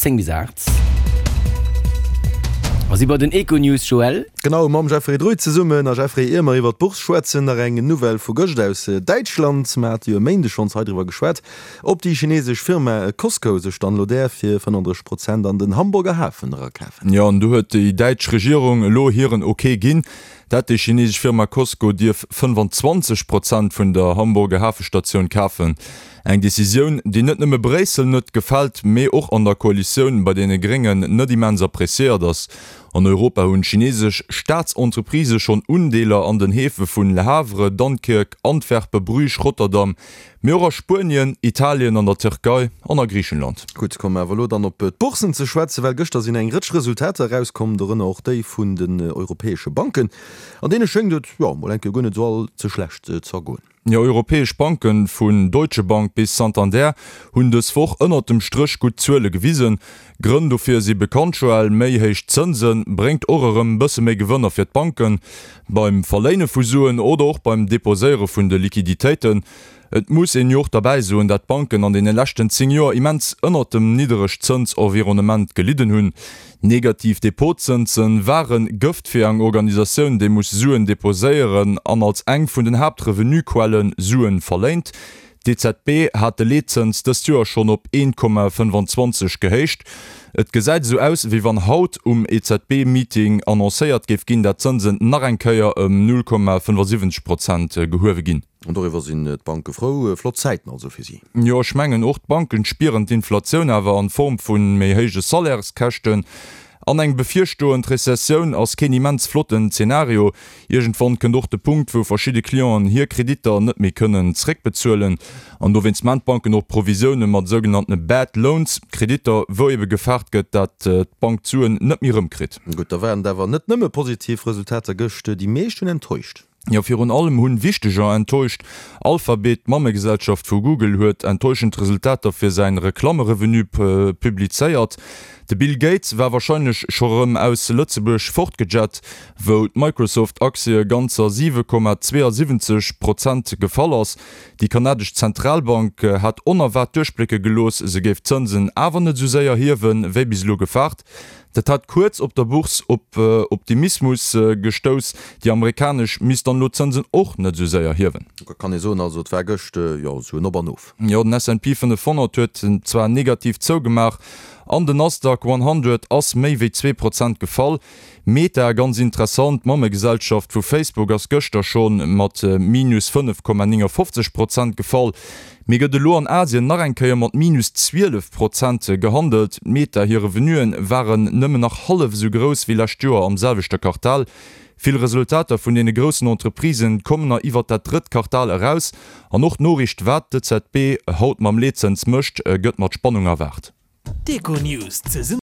10 bis 8. A si bei den Econews, Joël. Genau, mam Jeffrey Druy zesummen. A Jeffrey, ier mer iwwer d'Bourse schwätzen, nach eng Nouvelle vu gëscht aus Däitschland. Mer hate jo e Méindeg schonns hei driwwer geschwat, ob déi chinesesch Firma Cosco sech dann elo däerf fir 35 Prozent an den Hamburger Hafen erakafen. Jo, an do huet déi däitsch Regierung elo hiren Ok ginn, dat déi chinesesch Firma Cosco dierf 25 Prozent vun der Hamburger Hafestatioun kafen. Eng Decisioun, déi net nëmme Bréissel net gefält, mee och an der Koalitioun bei deene Gréngen net immens appreciéiert ass. An Europa hunn chinesesch Staatsentreprisë schonn Undeeler an den Häfe vun Le Havre, Dunkirk, Antwerpen, Bruges, Rotterdam, mee och a Spuenien, Italien, an der Tierkei an a Griichenland. Gutt, komme mer awer elo dann op d'Boursen ze schwätzen, well gëschter sinn eng Rëtsch Resultater erauskomm, dorënner och déi vun den europäesche Banken. An deene schéngt et, jo, mol eng Kéier guer net esou all ze schlecht ze ergoen. Jo, europäesch Banken, vun Deutsche Bank bis Santander, hunn dës Woch ënnert dem Stréch gutt Zuele gewisen. Grënn dofir si bekannt, Joël, méi héich Zënse bréngt och erëm bësse méi Gewënner fir d'Banken, beim Verléine vu Suen oder och beim Deposéiere vun de Liquiditéiten. Et muss een jo och derbäi soen, dat d'Banken an deene leschten 10 Joer immens ënnert dem Nidderegzënsenvironnement gelidden hunn. Negativ Depotzënse ware Gëft fir eng Organisatioun, déi muss Suen deposéieren an als eng vun den Haaptrevenuequelle Suen verléint. D'EZB hat de Leetzëns dëst Joer schonn op 1,25 gehéicht. Et gesäit esou aus, wéi wann haut um EZB-Meeting annoncéiert géif ginn, dat d'Zënsen nach eng Kéier ëm 0,75 Prozent gehuewe ginn. An doriwwer sinn d'Banke frou. Flott Zäiten also fir si. Jo, ech mengen, och d'Banken spieren d'Inflatioun awer an Form vu méi héije Salaires-Käschten. An eng bevirstoend Rezessioun ass keen immens flotten Zeenario. Iergendwann kënnt och de Punkt, wou verschidde Clienten hir Kreditter net méi kënnen zréckbezuelen. An dowéinst maan d'Banken och Provisioune mat sougenanntene Bad Loans, Kreditter, wou ebe gefaart gëtt, dat d'Bank d'Suen net méi erëmkritt. Gutt, da waren et awer net nëmme positiv Resultater gëscht. Déi meescht hunn enttäuscht. Jo, virun allem hunn Wichteger enttäuscht. Alphabet, d'Mammegesellschaft vu Google, huet enttäuschend Resultater fir säin Reklammerevenu publizéiert. De Bill Gates war warscheinlech scho rëm aus Lëtzebuerg fortgejett, wou d'Microsoft-Aktie ganzer 7,72 Prozent gefall ass. Déi kanadesch Zentralbank hat onerwaart duerchblécke gelooss, se géif d'Zënsen awer net esou séier hiewen, wéi bis elo gefaart. Dat hat kuerz op der Bourse op Optimismus gestouss. Déi amerikanesch misst dann elo d'Zënsen och net esou séier hiewen. Da kann ee soen, also et war gëscht, jo, esou en Op an Of. Jo, den S&P 500 huet zwar negativ zougemaach an den Nasdaq 100 ass méi wéi 2 Prozent gefall. Meta, ganz interessant, d'Mammegesellschaft vu Facebook ass gëschter scho mat minus 5,59 Prozent gefall, mee gëtt elo an Asien nach eng Kéier mat minus 12 Prozent gehandelt. Meta hir Revenuen waren nëmmen nach hallef esou grouss wéi lescht Joer am selwechte Quartal. Vill Resultater vun deene groussen Entreprisen kommen na iwwert dat drëtt Quartal eraus an och d'Noriicht wat d'EZB haut mam Leetzëns mécht, gëtt mat Spannung erwaart. D'Econews zesumme.